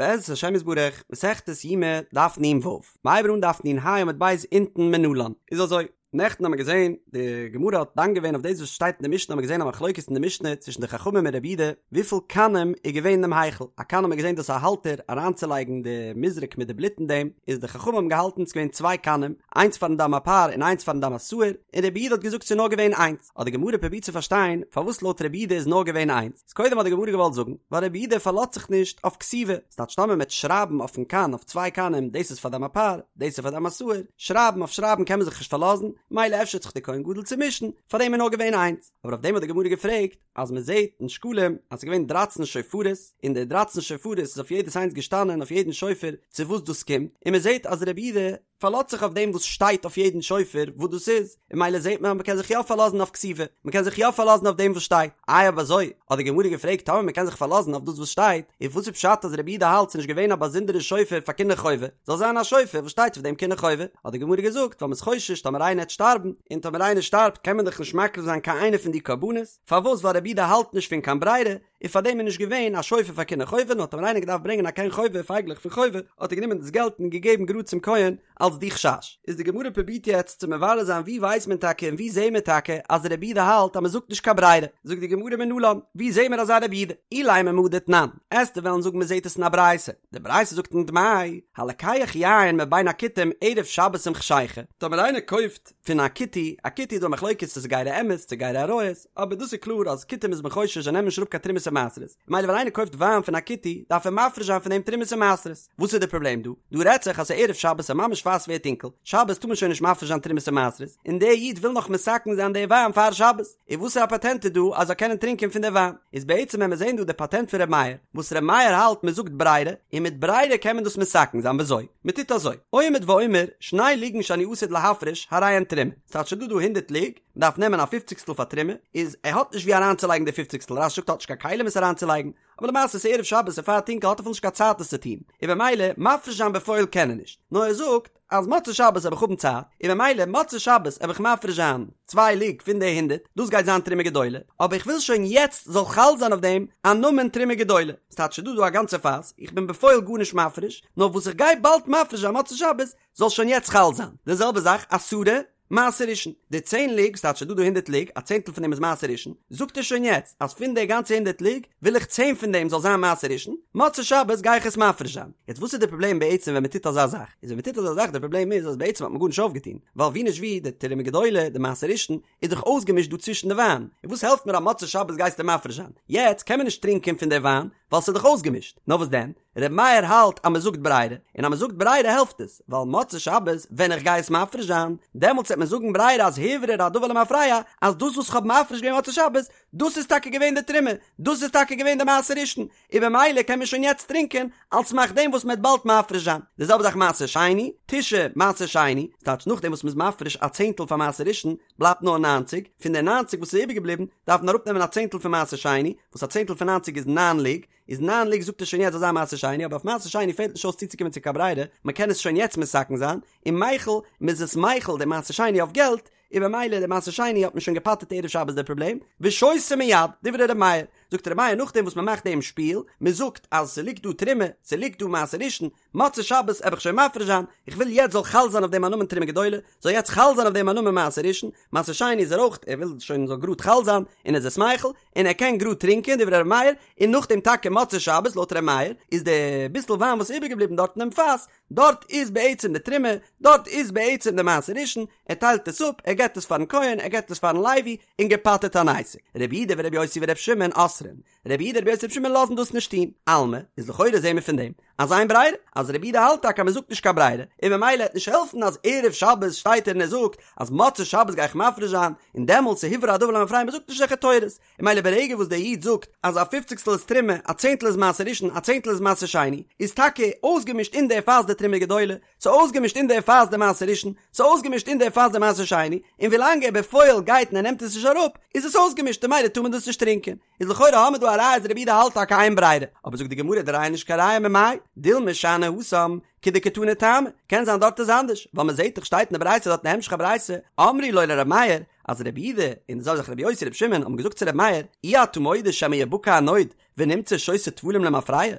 בעזרת השם יתברך, מסכת יומא, דף נ"ו. מ'הייבט אן דף נ"ה עמוד ב' אונטן מנלן. איז אזוי, נעכטן האמיר געזען, די גמרא האט דן געווען אויף דאס וואס שטייט אין די משנה האמיר געזען א מחלוקת אין די משנה צווישן די חכמים און רבי יהודה, וויפיל קנים איז געווען אינעם היכל, א קן האמיר געזען דאס א האלטער אריינצולייגן די מזרק מיט די בלוט אין דעם, איז די חכמים האבן געהאלטן ס'איז געווען צוויי קנים, איינס פארן דם הפר און איינס פארן דם השעיר, און רבי יהודה האט געזאגט ס'איז נאר געווען איינס, האט די גמרא פרובירט צו פארשטיין פארוואס לויט רבי יהודה איז נאר געווען איינס. איז קודם האט די גמרא געוואלט זאגן, ווייל רבי יהודה פארלאזט זיך נישט אויף כתיבה, ס'טייטש טאמער מ'עט שרייבן אויפן קן אויף צוויי קנים דאס איז פאר דם הפר, דאס איז פאר דם השעיר, שרייבן אויף שרייבן קען מען זיך נישט פארלאזן, מילא אפשר האט זיך די כהן גדול צומישן, פארדעם איז נאר געווען איינס. אבער אויף דעם האט די גמרא געפרעגט, אז מ'זעט אין שקלים אז ס'איז געווען דרייצן שופרות, און די דרייצן שופרות איז אויף יעדעס איינס געשטאנען אויף יעדן שופר צו וואס דאס קומט, און מ'זעט אז רבי יהודה פארלאזט זיך אויף דעם וואס שטייט אויף יעדן שופר וואס דאס איז, און מילא זעט מען אז מ'קען זיך יא פארלאזן אויף כתיבה, מ'קען זיך יא פארלאזן אויף דעם וואס שטייט. איי אויב אזוי, האט די גמרא געפרעגט טאמער מ'קען זיך פארלאזן אויף דאס וואס שטייט, איז וואס איז פשט אז רבי יהודה האלט ס'נישט געווען א באזונדערע שופר פאר קיני חובה, זאל זיין א שופר וואס שטייט אויף דעם קיני חובה? האט די גמרא געזאגט ווייל מ'איז חושש טאמער איינער העט שטארבן, און טאמער איינער שטארבט קען מען דאך נישט מקריב זיין קיין איינע פון די קרבנות, פארוואס ווייל רבי יהודה האלט נישט פון קיין ברירה, און פאר דעם איז נישט געווען א שופר פאר קיני חובה נאר טאמער איינער געדארפט ברענגען א קן חובה פייגלעך פון חובה האט ער גענומען דאס געלט און געגעבן גראד צום כהן אלס די חשש איז די גמרא פרובירט יעצט צו מברר זיין ווי ווייסט מען טאקע און ווי זעהן מיר טאקע אז רבי יהודה האלט אז מען זאגט נישט קיין ברירה זאגט די גמרא מנלן ווי זעהן מיר אזא רבי יהודה אילימא מהא דתנן עסטו וועלן זאגן מען זעהט עס אין א ברייתא די ברייתא זאגט אין דמאי הלוקח יין מבין הכותים ערב שבת עם חשיכה טאמער איינער קויפט פון א כותי, א כותי איז דא א מחלוקת צו ס'איז גירי אמת צו גירי אריות, אבער דאס איז קלאר אז כותים איז מען חושש זיי נעמען נישט אראפ קיין תרומות און מעשרות, ממילא ווען איינער קויפט וויין פון א כותי דארף ער מפריש זיין פון דעם תרומות און מעשרות, וואס איז די פראבלעם דא? דא רעדט זיך אז ס'איז ערב שבת און ממש פאר ס'ווערט טונקל, שבת טאר מען שוין נישט מפריש זיין תרומות און מעשרות, און דער איד וויל נאך מתקן זיין די וויין פאר שבת, און וואסערע א פאטענט איז דא אז זאל קענען טרינקען פון די וויין? איז בעצם ווען מיר זעהן דא די פאטענט פון ר' מאיר, וואס ר' מאיר האלט מען זאגט ברירה, און מיט ברירה קען מען דאס מתקן זיין, וויאזוי? מען טוט אזוי, עומד ואומר, שני לוגין שאני עתיד להפריש, הרי הן תרומה. ס'טייטש ס'דא דא הונדערט לוג, מען דארף נעמען א פופציגסטל פאר תרומה, איז ער האט נישט ווי אריינצולייגן די פופציגסטל, רש"י זאגט ער האט נישט קיין כלים עס אריינצולייגן, אבער למעשה ס'איז ערב שבת און פאר טונקל האט ער אפילו נישט קיין צייט עס צו טון, און במילא מפריש זיין בפועל קען ער נישט, נאר ער זאגט אז מוצאי שבת וועל איך האבן צייט, און במילא מוצאי שבת וועל איך מפריש זיין צוויי לוג פון די הונדערט, דאס גייט זיין תרומה גדולה, אבער איך וויל שוין יעצט זאל חל זיין אויף דעם א נאמען תרומה גדולה. ס'טייטש ס'דא דא א גאנצע פאס, איך בין בפועל גארנישט מפריש, נאר וואס איך גיי באלד מפריש זיין מוצאי שבת, זאל שוין יעצט חל זיין. די זעלבע זאך עשרה מעשר ראשון, די צען לוג, ס'טייטש ס'דא דא הונדערט לוג, א צענטל פון דעם איז מעשר ראשון, זאגט ער שוין יעצט אז פון די גאנצע הונדערט לוג, וויל איך צען פון דעם זאל זיין מעשר ראשון, מוצאי שבת גיי איך עס מפריש זיין. יעצט וואס איז די פראבלעם בעצם ווען מ'טוט אזא זאך? איז ווען מ'טוט אזא זאך די פראבלעם איז אז בעצם האט מען גארנישט אויפגעטון, ווייל ווי נישט ווי, די תרומה גדולה, די מעשר ראשון, איז דאך אויסגעמישט דא צווישן די וויין, און וואס העלפט מיר אז מוצאי שבת גייסטו מפריש זיין? יעצט קען מען נישט טרינקען פון די וויין ווייל ס'איז דאך אויסגעמישט, נאר וואס דען? ר' מאיר האלט אז מ'זאגט ברירה, און אז מ'זאגט ברירה העלפט עס, ווייל מוצאי שבת ווען איך גיי עס מפריש זיין, דעמאלטס וועט מען זאגן ברירה אז הוברר הדבר למפרע, אז דאס וואס כ'האב מפריש געווען מוצאי שבת, דאס איז טאקע געווען די תרומה, דאס איז טאקע געווען די מעשר ראשון, און במילא קען מען שוין יעצט טרינקען, על סמך דעם וואס מ'עט באלד מפריש זיין. די זעלבע זאך מעשר שני, תשעה מעשר שני, ס'טייטש נאכדעם וואס מ'איז מפריש א צענטל פאר מעשר ראשון, בלייבט נאר ניינציג, פון די ניינציג וואס איז איבערגעבליבן, דארף מען אראפנעמען א צענטל פון מעשר שני, וואס א צענטל פון ניינציג איז ניין לוג, איז ניין לוג זאגט ער שוין יעצט זאל זיין מעשר שני, אבער אויף מעשר שני פעלט נישט אויס צוצוקומען צו קיין ברירה, מ'קען עס שוין יעצט מתקן זיין, און מיכל, מ'איז עס מחיל די מעשר שני אויף געלט, און במילא די מעשר שני האט מען שוין געפטר'ט ערב שבת די פראבלעם, ושותה מיד, דברי ר' מאיר, זאגט ר' מאיר נאכדעם וואס מען מאכט דעם שפיל, מען זאגט אז ס'ליגט דא תרומה, ס'ליגט דא מעשר ראשון, מוצאי שבת עב איך שוין מפריש זיין, איך וויל יעצט זאל חל זיין אויף דעם א נאמען תרומה גדולה, זאל יעצט חל זיין אויף דעם א נאמען מעשר ראשון, מעשר שני איז ער אויך, ער וויל שוין זאל גראד חל זיין, און ער איז עס מחיל, און ער קען גראד טרינקען, דברי ר' מאיר, און נאכדעם טאקע מוצאי שבת לויט ר' מאיר, איז די ביסל וויין וואס איז איבערגעבליבן דארט אינעם פאס, דארט איז בעצם די תרומה, דארט איז בעצם די מעשר ראשון, ער טיילט עס אפ, ער געבט עס פארן כהן, ער געבט עס פארן לוי, און געפטר'ט אן עסק. רבי יהודה ורבי יוסי ורבי שמעון אוסרין. רבי יהודה רבי יוסי רבי שמעון לאזן דאס נישט טון. אלמא, איז לכאורה זעהן מיר פון דעם, אז אין ברירה, אז רבי יהודה האלט טאקע אז מען זאגט נישט קיין ברירה, און ממילא העט נישט העלפן אז ערב שבת שטייט ער און ער זאגט אז מוצאי שבת גיי איך מפריש זיין, און דעמאלטס איז הוברר הדבר למפרע מען זאגט נישט אזעלכע תורות. און ממילא ברגע וואס דער איד זאגט אז א פופציגסטל איז תרומה, א צענטל איז מעשר ראשון, א צענטל איז מעשר שני, איז טאקע אויסגעמישט אין דער פאס די תרומה גדולה, ס'איז אויסגעמישט אין דער פאס די מעשר ראשון, ס'איז אויסגעמישט אין דער פאס די מעשר שני, און ווילאנג ער בפועל גייט און ער נעמט עס נישט אראפ, איז עס אויסגעמישט און ממילא טאר מען דאס נישט טרינקען. איז לכאורה האמיר דא א ראיה אז רבי יהודה האלט טאקע אין ברירה, אבער זאגט די גמרא די ראיה איז נישט קיין ראיה ממאי, דילמא שאני התם, כדקתני טעמא, קען זיין דארט איז אנדערש, ווייל מען זעט דאך שטייט אין די ברייתא דארט אין המשך הברייתא, אמרו לו לר' מאיר, אז רבי יהודה און די זעלבע זאך רבי יוסי רבי שמעון האבן געזאגט צו רבי מאיר, אי אתה מודה שמא יבקע הנוד. ונמצא שותה טבלים למפרע,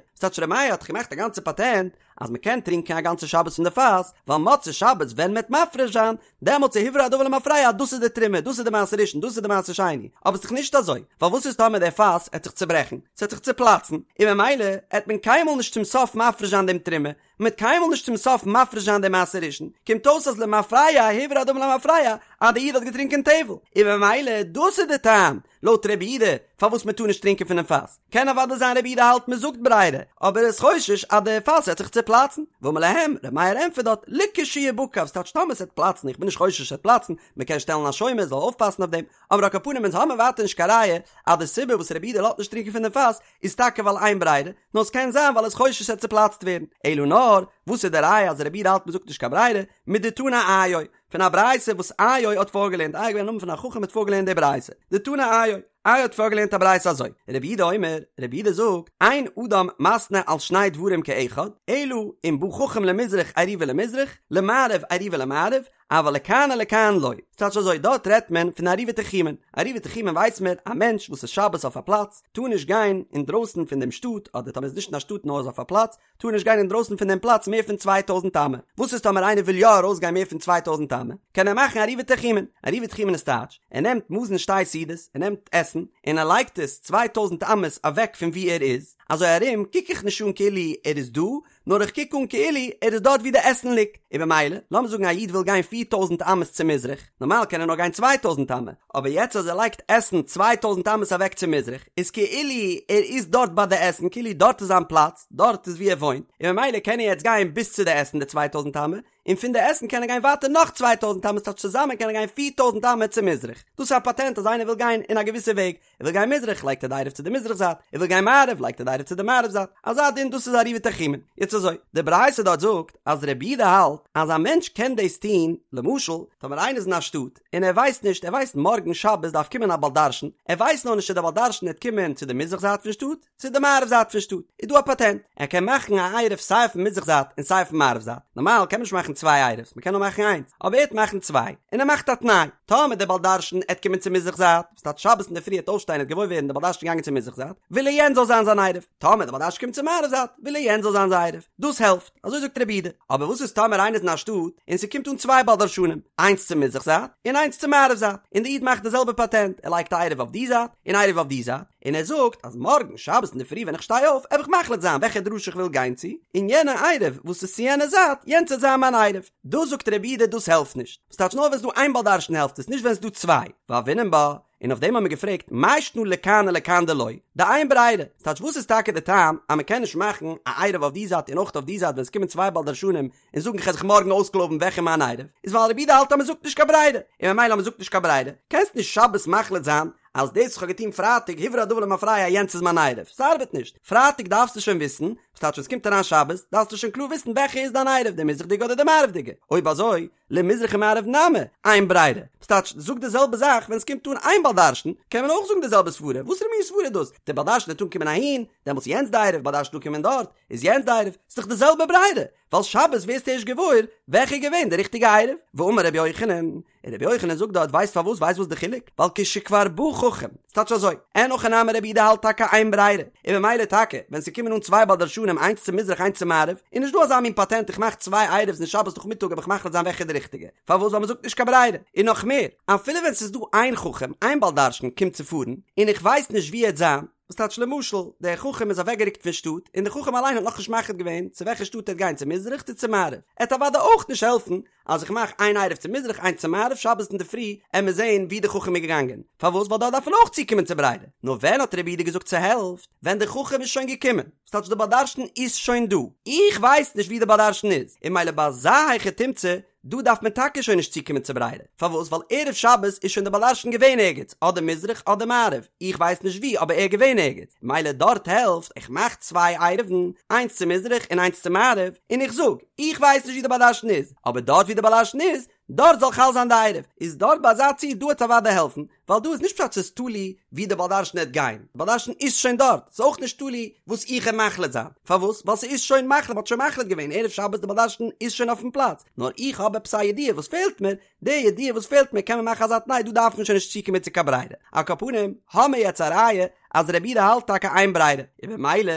ס'טייטש ר' מאיר האט דאך געמאכט א גאנצע פאטענט אז מ'קען טרינקען א גאנצע שבת פון די פאס, ווייל מוצאי שבת ווען מ'עט מפריש זיין, דעמאלטס איז הוברר הדבר למפרע אז דאס איז די תרומה, דאס איז די מעשר ראשון, דאס איז די מעשר שני, אבער ס'דאך נישט אזוי, ווייל וואס איז טאמער דער פאס עט זיך צוברעכן, ס'עט זיך צופלאצן, און ממילא עט מען קיינמאל נישט צום סוף מפריש זיין דעם תרומה, מ'עט קיינמאל נישט צום סוף מפריש זיין דעם מעשר ראשון, קומט אויס אז למפרע הוברר הדבר למפרע אז דער איד האט געטרינקען טבל, און ממילא דאס איז די טעם, לויט רבי יהודה, פארוואס מען טאר נישט טרינקען פונעם פאס. קען אוודאי זיין רבי יהודה האלט מען זאגט ברירה, אבער ער איז חושש אז די פאס וועט זיך צופלאצן. ואמר להם, רבי מאיר ענטפערט דארט, לכשיבקע, ס'טייטש טאמער ס'וועט פלאצן, איך בין נישט חושש ס'וועט פלאצן, מען קען שטעלן א שומר זאל אויפפאסן אויף דעם, אבער על כל פנים אונז האמיר ווייטער נישט קיין ראיה אז די סיבה וואס רבי יהודה לאזט נישט טרינקען פון דעם פאס איז טאקע ווייל אין ברירה, נאר ס'קען זיין ווייל ער איז חושש ס'וועט צופלאצט ווערן. אלא נאר, וואס איז די ראיה אז רבי יהודה האלט מען זאגט נישט קיין ברירה, מדתנא איו, פון א ברייתא וואס איו האט פארגעלערנט, איו איז געווען א נאמען פון א חכם האט פארגעלערנט די ברייתא, דתנא איו, איו האט פארגעלערנט א ברייתא אזוי, רבי יהודה אומר, רבי יהודה זאגט, אין אדם מתנה על שני דברים כאחד, אלא אם בא חכם למזרח עירובו למזרח, למערב עירובו למערב, אבל לכאן ולכאן לא. ס'טייטש אזוי, דארט רעדט מען פון עירובי תחומין, עירובי תחומין ווייסט מען, א מענטש וואס איז שבת אויף א פלאץ, טאר נישט גיין אינדרויסן פון דעם שטאט, אדער טאמער איז נישט אין א שטאט נאר איז אויף א פלאץ, טאר נישט גיין אינדרויסן פון דעם פלאץ מער פון צוויי טויזנט אמה. וואס איז טאמער איינער וויל יא ארויסגיין מער פון צוויי טויזנט אמה? קען ער מאכן עירובי תחומין. עירובי תחומין איז טייטש, ער נעמט מזון שתי סעודות, ער נעמט עסן, און ער לייגט עס צוויי טויזנט אמות אוועק פון וואו ער איז, אזוי ארום קוק איך נישט אן כאילו ער איז דא, נאר איך קוק אן כאילו ער איז דארט וואו די עסן ליגט. און במילא, לאמיר זאגן א איד וויל גיין פיר טויזנט אמות צו מזרח, נארמאל קען ער נאר גיין צוויי טויזנט אמה, אבער יעצט אז ער לייגט עסן צוויי טויזנט אמות אוועק צו מזרח, איז כאילו ער איז דארט ביי די עסן, כאילו דארט איז זיין פלאץ, דארט איז וואו ער וואוינט, און ממילא קען ער יעצט גיין ביז צו די עסן די צוויי טויזנט אמה, און פון די עסן קען ער גיין ווייטער נאך צוויי טויזנט אמה, ס'טייטש צוזאמען קען ער גיין פיר טויזנט אמה צו מזרח. דאס איז א פאטענט אז איינער וויל גיין אין א געוויסע וועג, ער וויל גיין מזרח לייגט ער די עירוב צו די מזרח זייט, ער וויל גיין מערב לייגט ער די עירוב צו די מערב זייט, אזא דין דאס איז עירובי תחומין. יעצט אזוי, די ברייתא דארט זאגט אז רבי יהודה האלט אז א מענטש קען דאס טון, למשל טאמער איינער איז אין א שטאט און ער ווייסט נישט, ער ווייסט מארגן שבת דארף קומען א בעל דרשן, ער ווייסט נאר נישט צו דער בעל דרשן וועט קומען צו די מזרח זייט פון שטאט, צו די מערב זייט פון שטאט איז דא א פאטענט, ער קען מאכן א עירוב סיי אויפן מזרח זייט און סיי אויפן מערב זייט, נארמאל קען מען נישט מאכן צוויי עירובס, מען קען נאר מאכן איינס, אבער ער וועט מאכן צוויי, און ער מאכט א תנאי, טאמער דער בעל דרשן עט קומען צו מזרח זייט, וואס טייטש שבת אינדערפרי עט אויפשטיין עט געוואויר ווערן דער בעל דרשן איז געגאנגען צו מזרח זייט, וויל ער יענץ זאל זיין זיין עירוב, טאמער דער בעל דרשן קומט צו מערב זייט, וויל ער יענץ זאל זיין זיין עירוב, דאס העלפט, אזוי זאגט רבי יהודה, אבער וואס איז טאמער איינער איז אין א שטאט און ס'קומט אן צוויי בעל דרשנים, איינס צו מזרח זייט און איינס צו מערב זייט, און דער איד מאכט די זעלבע פאטענט, ער לייגט א עירוב אויף די זייט און עירוב אויף די זייט, און ער זאגט אז מארגן שבת אינדערפרי ווען איך שטיי אויף עב איך מחליט זיין וועלכע דרשה איך וויל גיין צו, און יענע עירוב וואס איז צו יענע זייט, יענץ וועט זיין מיין עירוב. דאס זאגט רבי יהודה דאס העלפט נישט. ס'טייטש נאר ווען ס'דא איין בעל דרשן העלפט עס, נישט ווען ס'דא צוויי. והוינן בה, און אויף דעם האבן מיר געפרעגט, מאי שנא לכאן ולכאן דלא, דאין ברירה, ס'טייטש וואס איז טאקע די טעם אז מ'קען נישט מאכן א עירוב אויף די זייט און אויך אויף די זייט ווען ס'קומען צוויי בעל דרשנים און זאגן כ'על זיך מארגן אויסקלויבן וועלכע מיין עירוב, איז ווייל רבי יהודה האלט אז מ'זאגט נישט קיין ברירה, און ממילא אז מ'זאגט נישט קיין ברירה, קענסט נישט שבת מחליט זיין אז דאס וואס כ'האב געטון פרייטאג הוברר הדבר למפרע יענץ איז מיין עירוב, ס'ארבעט נישט, פרייטאג דארפסטו שוין וויסן, וואס טייטש ווען ס'קומט אריין שבת, דארפסטו שוין קלאר וויסן וועלכע איז דיין עירוב, די מזרח'דיגע אדער די מערב'דיגע, אויב אזוי, למזרח ומערב נמי, אין ברירה, וואס טייטש, זאג די זעלבע זאך ווען ס'קומט אן איין בעל דרשן, קען מען אויך זאגן די זעלבע סברה, וואסערע מין סברה איז דאס, דער בעל דרשן וועט אנקומען אהין, דעמאלטס איז יענץ די עירוב, בעל דרשן אנקומען דארט, איז יענץ די עירוב, ס'איז דאך די זעלבע ברירה, ווייל שבת ווערסטו ערשט געוואויר וועלכע איז געווען די ריכטיגע עירוב, ואמר רבי יוחנן, און רבי יוחנן זאגט דארט ווייסט פארוואס ווייסט וואס די חילוק ווייל כשכבר בא חכם ס'טייטש אזוי אין הכי נמי רבי יהודה האלט טאקע אין ברירה און ממילא טאקע ווען ס'קומען אן צוויי בעל דרשנים איינס צו מזרח איינס צו מערב איז נישט דא אזא מין פאטענט איך מאך צוויי עירוב'ס און שבת נאכמיטאג וועל איך מחליט זיין וועלכע איז די ריכטיגע פארוואס ווייל מ'זאגט נישט קיין ברירה און נאך מער אפילו ווען ס'איז דא איין חכם איין בעל דרשן קומט צו פארן און איך ווייס נישט וואו ער וועט זיין וואס טייטש למשל, דער חכם איז אוועקגערוקט פון שטאט, און דער חכם אליין האט נאכנישט מחליט געווען צו וועלכע שטאט ער וועט גיין צו מזרח צו צו מערב, עט אוודאי אויך נישט העלפן אז איך מאך איין עירוב צו מזרח איינס צו מערב שבת אינדערפרי עמיר זעהן וואו דער חכם איז געגאנגען, פארוואס ווייל דארט דארף מען אויך צוקומען צו ברירה, נאר ווען האט רבי יהודה געזאגט ס'העלפט? ווען דער חכם איז שוין געקומען, וואס טייטש דער בעל דרשן איז שוין דא, איך ווייס נישט וואו דער בעל דרשן איז, און ממילא ביי אזא היכי תמצא דא דארף מען טאקע שוין נישט צוקומען צו ברירה, פארוואס? ווייל ערב שבת איז שוין דער בעל דרשן געווען ערגעץ, אדער מזרח אדער מערב, איך ווייס נישט וואו אבער ער איז געווען ערגעץ, מילא דארט העלפט, איך מאך צוויי עירובין, איינס צו מזרח און איינס צו מערב, און איך זאג, איך ווייס נישט וואו דער בעל דרשן איז, אבער דארט וואו דער בעל דרשן איז, דארט זאל חל זיין די עירוב, איז דארט ביי אזא ציור דא וועט אוודאי העלפן, ווייל דא איז נישט פשט ס'איז תלוי ווי די בעל דרשן העט גיין, די בעל דרשן איז שוין דארט, ס'איז אויך נישט תלוי וואס איך העט מחליט זיין, פארוואס? ווייל ס'איז שוין מחליט, מ'האט שוין מחליט געווען ערב שבת די בעל דרשן איז שוין אויפן פלאץ, נאר איך האב עפעס א ידיעה וואס פעלט מיר, די ידיעה וואס פעלט מיר קען מען מאכן אזא תנאי דא דארף מען שוין נישט צוקומען צו קיין ברירה, על כל פנים האמיר יעצט א ראיה אז רבי יהודה האלט טאקע אין ברירה, און במילא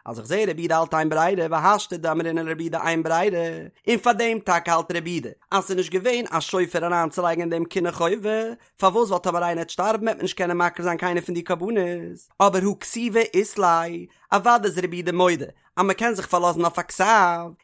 אז איך זעה רבי יהודה האלט אין ברירה והשתא דאמרינן לרבי יהודה אין ברירה, און פאר דעם טאקע האלט רבי יהודה אז ס'איז נישט געווען א שופר אריינצולייגן אין דעם כינור חובה, פארוואס ווייל טאמער איינער העט שטארבן העט מען נישט קענען מקריב זיין קיינער פון די קרבנות, אבער הא כתיבה אית ליה, אוודאי איז רבי יהודה מודה אז מען קען זיך פארלאזן אויף א כתב,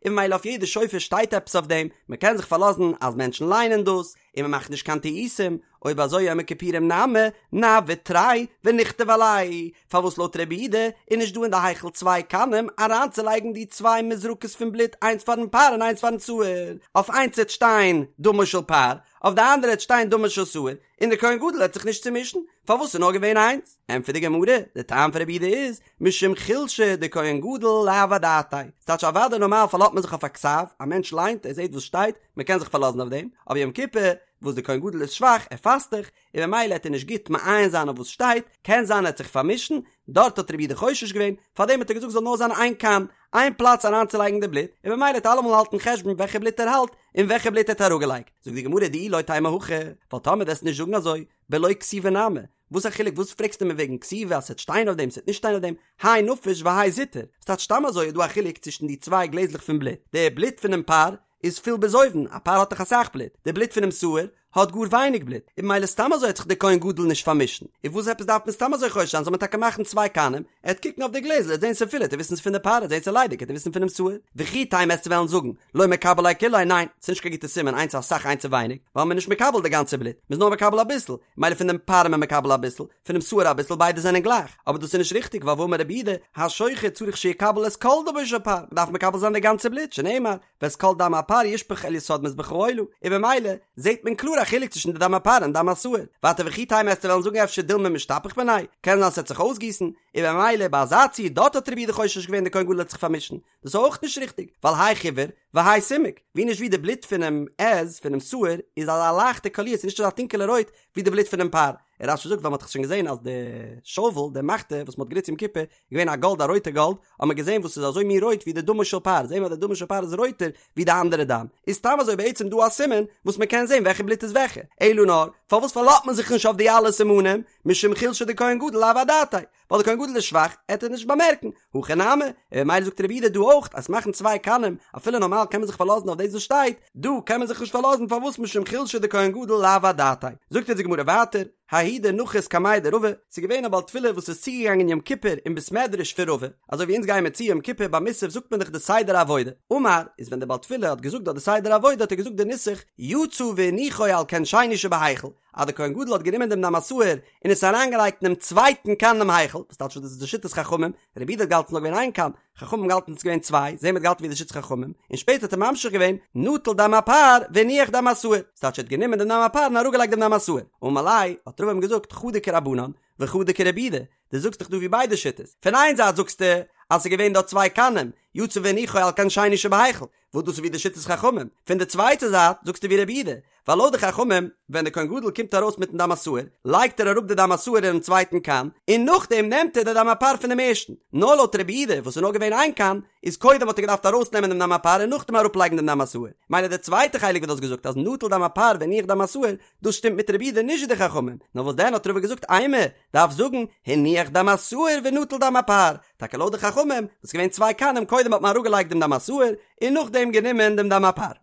און ממילא אויף יעדע שופר שטייט עפעס אויף דעם, מען קען זיך פארלאזן אז מענטשן ליינען דאס, און מען מאכט נישט קיין טעותים, אויב אזוי יום הכיפורים נמי, נעביד תרי ונכתוב עלייהו, פארוואס לויט רבי יהודה איז נישט דא אין די היכל צוויי קנים אריינצולייגן די צוויי מזרקות פון בלוט איינס פארן פר און איינס פארן שעיר, אויף איינס וועט שטיין דמו של פר, אויף די אנדערע וועט שטיין דמו של שעיר, און דער כהן גדול העט זיך נישט צומישן, פארוואס איז נאר געווען איינס? ענטפערט די גמרא, די טעם פון רבי יהודה איז, משום חולשא דכהן גדול לאו אדעתיה, ס'טייטש אוודאי נארמאל פארלאזט מען זיך אויף א כתב, א מענטש ליינט, ער זעט וואס שטייט, מען קען זיך פארלאזן אויף דעם, אבער יום כיפור, וואס דער כהן גדול איז שוואך, ער פאסט דאך, און ממילא העט ער נישט גוט מעיין זיין אויף וואס שטייט, קען זיין ער העט זיך פארמישן, דארט האט רבי יהודה חושש געווען, פארדעם האט ער געזאגט זאל נאר זיין איין קאן, איין פלאץ אריינצולייגן די בלוט, און ממילא העט אלעמאל האלטן חשבון וועלכע בלוט ער האלט, און וועלכע בלוט ער האט אראפגעלייגט. זאגט די גמרא דאי לא תימא הכי, ווייל טאמער וועסט נישט זאגן אזוי, בלא כתיבה נמי, וואס א חילוק וואס פרעגסטו מיר וועגן כתיבה אז ס'עט שטיין אויף דעם ס'עט נישט שטיין אויף דעם, האי נפיש והאי זוטר, ס'טייטש סתם אזוי איז דא א חילוק צווישן די צוויי גלעזלעך פון בלוט, די בלוט פונעם פר איז פול ביז אויבן, א פר האט דאך אסאך בלוט, די בלוט פונעם שעיר האט גאר ווייניג בלוט, און ממילא סתם אזוי העט זיך די כהן גדול נישט פארמישן, און וואס עפעס דארף מען סתם אזוי חושש זיין זאל מען טאקע מאכן צוויי קנים, ער העט קוקן אויף די גלעזל ער העט זען ס'פול העט ער וויסן ס'פון די פר ער העט זען ס'ליידיג העט ער וויסן פונעם שעיר, וכי תימא עסטו וועלן זאגן לא מקבל ליה כוליה ניין ס'נישט קיין גוטע סימן איינס אסאך איינס ווייניג ווייל מ'איז נישט מקבל די גאנצע בלוט מ'איז נאר מקבל אביסל מילא פון דעם פר איז מען מקבל אביסל פונעם שעיר אביסל ביידע זענען גלייך אבער דאס איז נישט ריכטיג ווייל והאמר רבי יהודה השוחט צריך שיקבל את כל דמו של פר מ'דארף מקבל זיין די גאנצע בלוט שנאמר ואת כל דם הפר ישפך אל יסוד מזבח העולה, און במילא זעהט מען קלאר א חילוק צווישן די דם הפר און דם השעיר. ווייטער וכי תימא עסטו וועלן זאגן אפשר דילמא משתפיך מיניה, קען זיין ס'וועט זיך אויסגיסן, און במילא ביי אזא ציור דארט האט רבי יהודה חושש געווען די כהן גדול וועט זיך פארמישן, דאס איז אויך נישט ריכטיג, ווייל האי חיוור והאי סומק, ווי נישט ווי די בלוט פונעם עז, פונעם שעיר, איז אזא לייכטע קאליר, ס'איז נישט אזא טונקעלע רויט ווי די בלוט פונעם פר. און רש"י זאגט ווייל מ'האט דאך שוין געזען אז די שאוול, די מחתה וואס מ'האט גענוצט יום כיפור, געווען א גאלד א רויטע גאלד, האט מען געזען וואס איז אזוי מין רויט ווי די דמו של פר, זעהן מיר אז די דמו של פר איז רויטער ווי די אנדערע דם, איז סתם אזוי בעצם דא א סימן וואס מען קען זען וועלכע בלוט איז וועלכע, אלא נאר, פארוואס פארלאזט מען זיך נישט אויף די אלע סימנים, משום חולשא דכהן גדול לאו אדעתיה, ווייל די כהן גדול איז שוואך, עט ער נישט באמערקן, הכא נמי, און ממילא זאגט רבי יהודה דא אויך אז מאכן צוויי קנים, אפילו נארמאל קען מען זיך פארלאזן אויף דאס וואס שטייט, דא קען מען זיך נישט פארלאזן פארוואס משום חולשא דכהן גדול לאו אדעתיה, זאגט אונז די גמרא ווייטער, ההוא דנחית קמיה דרבא, ס'איז געווען א בעל תפילה וואס איז צוגעגאנגען יום כיפור אין בית מדרש פון רבא, אזוי ווי אונז גייען מיר צו יום כיפור ביי מוסף זאגט מען דאך די סדר העבודה, אמר, איז ווען דער בעל תפילה האט געזאגט דארט די סדר העבודה האט ער געזאגט די נוסח, יצא והניחו על כן שני שבהיכל, אז דער כהן גדול האט גענומען דעם דם השעיר און עס אריינגעלייגט אינעם צווייטן כן אינעם היכל, וואס טייטש דאס איז די שיטת חכמים, רבי יהודה האט געהאלטן ס'איז נאר געווען איין כן, חכמים האבן געהאלטן ס'איז געווען צוויי, זעהן מיר האט געהאלטן ווי די שיטת חכמים, און שפעטער האט ער ממשיך געווען, נטל דם הפר והניח דם השעיר, ס'טייטש ער האט גענומען דעם דם הפר און אראפגעלייגט דעם דם השעיר, אמר ליה, האט רבא אים געזאגט, חדא כרבנן, וחדא כרבי יהודה, דו זאגסט דאך דא ווי ביידע שיטות, פון איין זייט זאגסטו אז ס'איז געווען דארט צוויי קנים, יצא והניחו על כן שני שבהיכל, וואס דאס איז ווי די שיטת חכמים, פון די צווייטע זייט זאגסטו ווי רבי יהודה, ווייל לויט די חכמים, ווען די כהן גדול קומט ארויס מיטן דם השעיר, לייגט ער אראפ די דם השעיר אינעם צווייטן כן, און נאכדעם נעמט ער די דם הפר פונעם ערשטן. נאר לויט רבי יהודה, וואס איז נאר געווען איין כן, איז קודם האט ער געדארפט ארויסנעמען דעם דם הפר און נאכדעם אראפלייגן דעם דם השעיר. מילא די צווייטע חלק וואס דו האסט געזאגט אז נטל דם הפר והניח דם השעיר, דאס שטימט מיט רבי יהודה נישט ווי די חכמים. נאר וואס דען האט רבא געזאגט אימא, דארף זאגן, הניח דם השעיר ונטל דם הפר. טאקע לויט די חכמים, וואס איז געווען צוויי כנים קודם האט מען אראפגעלייגט דעם דם השעיר, און נאכדעם גענומען דעם דם הפר.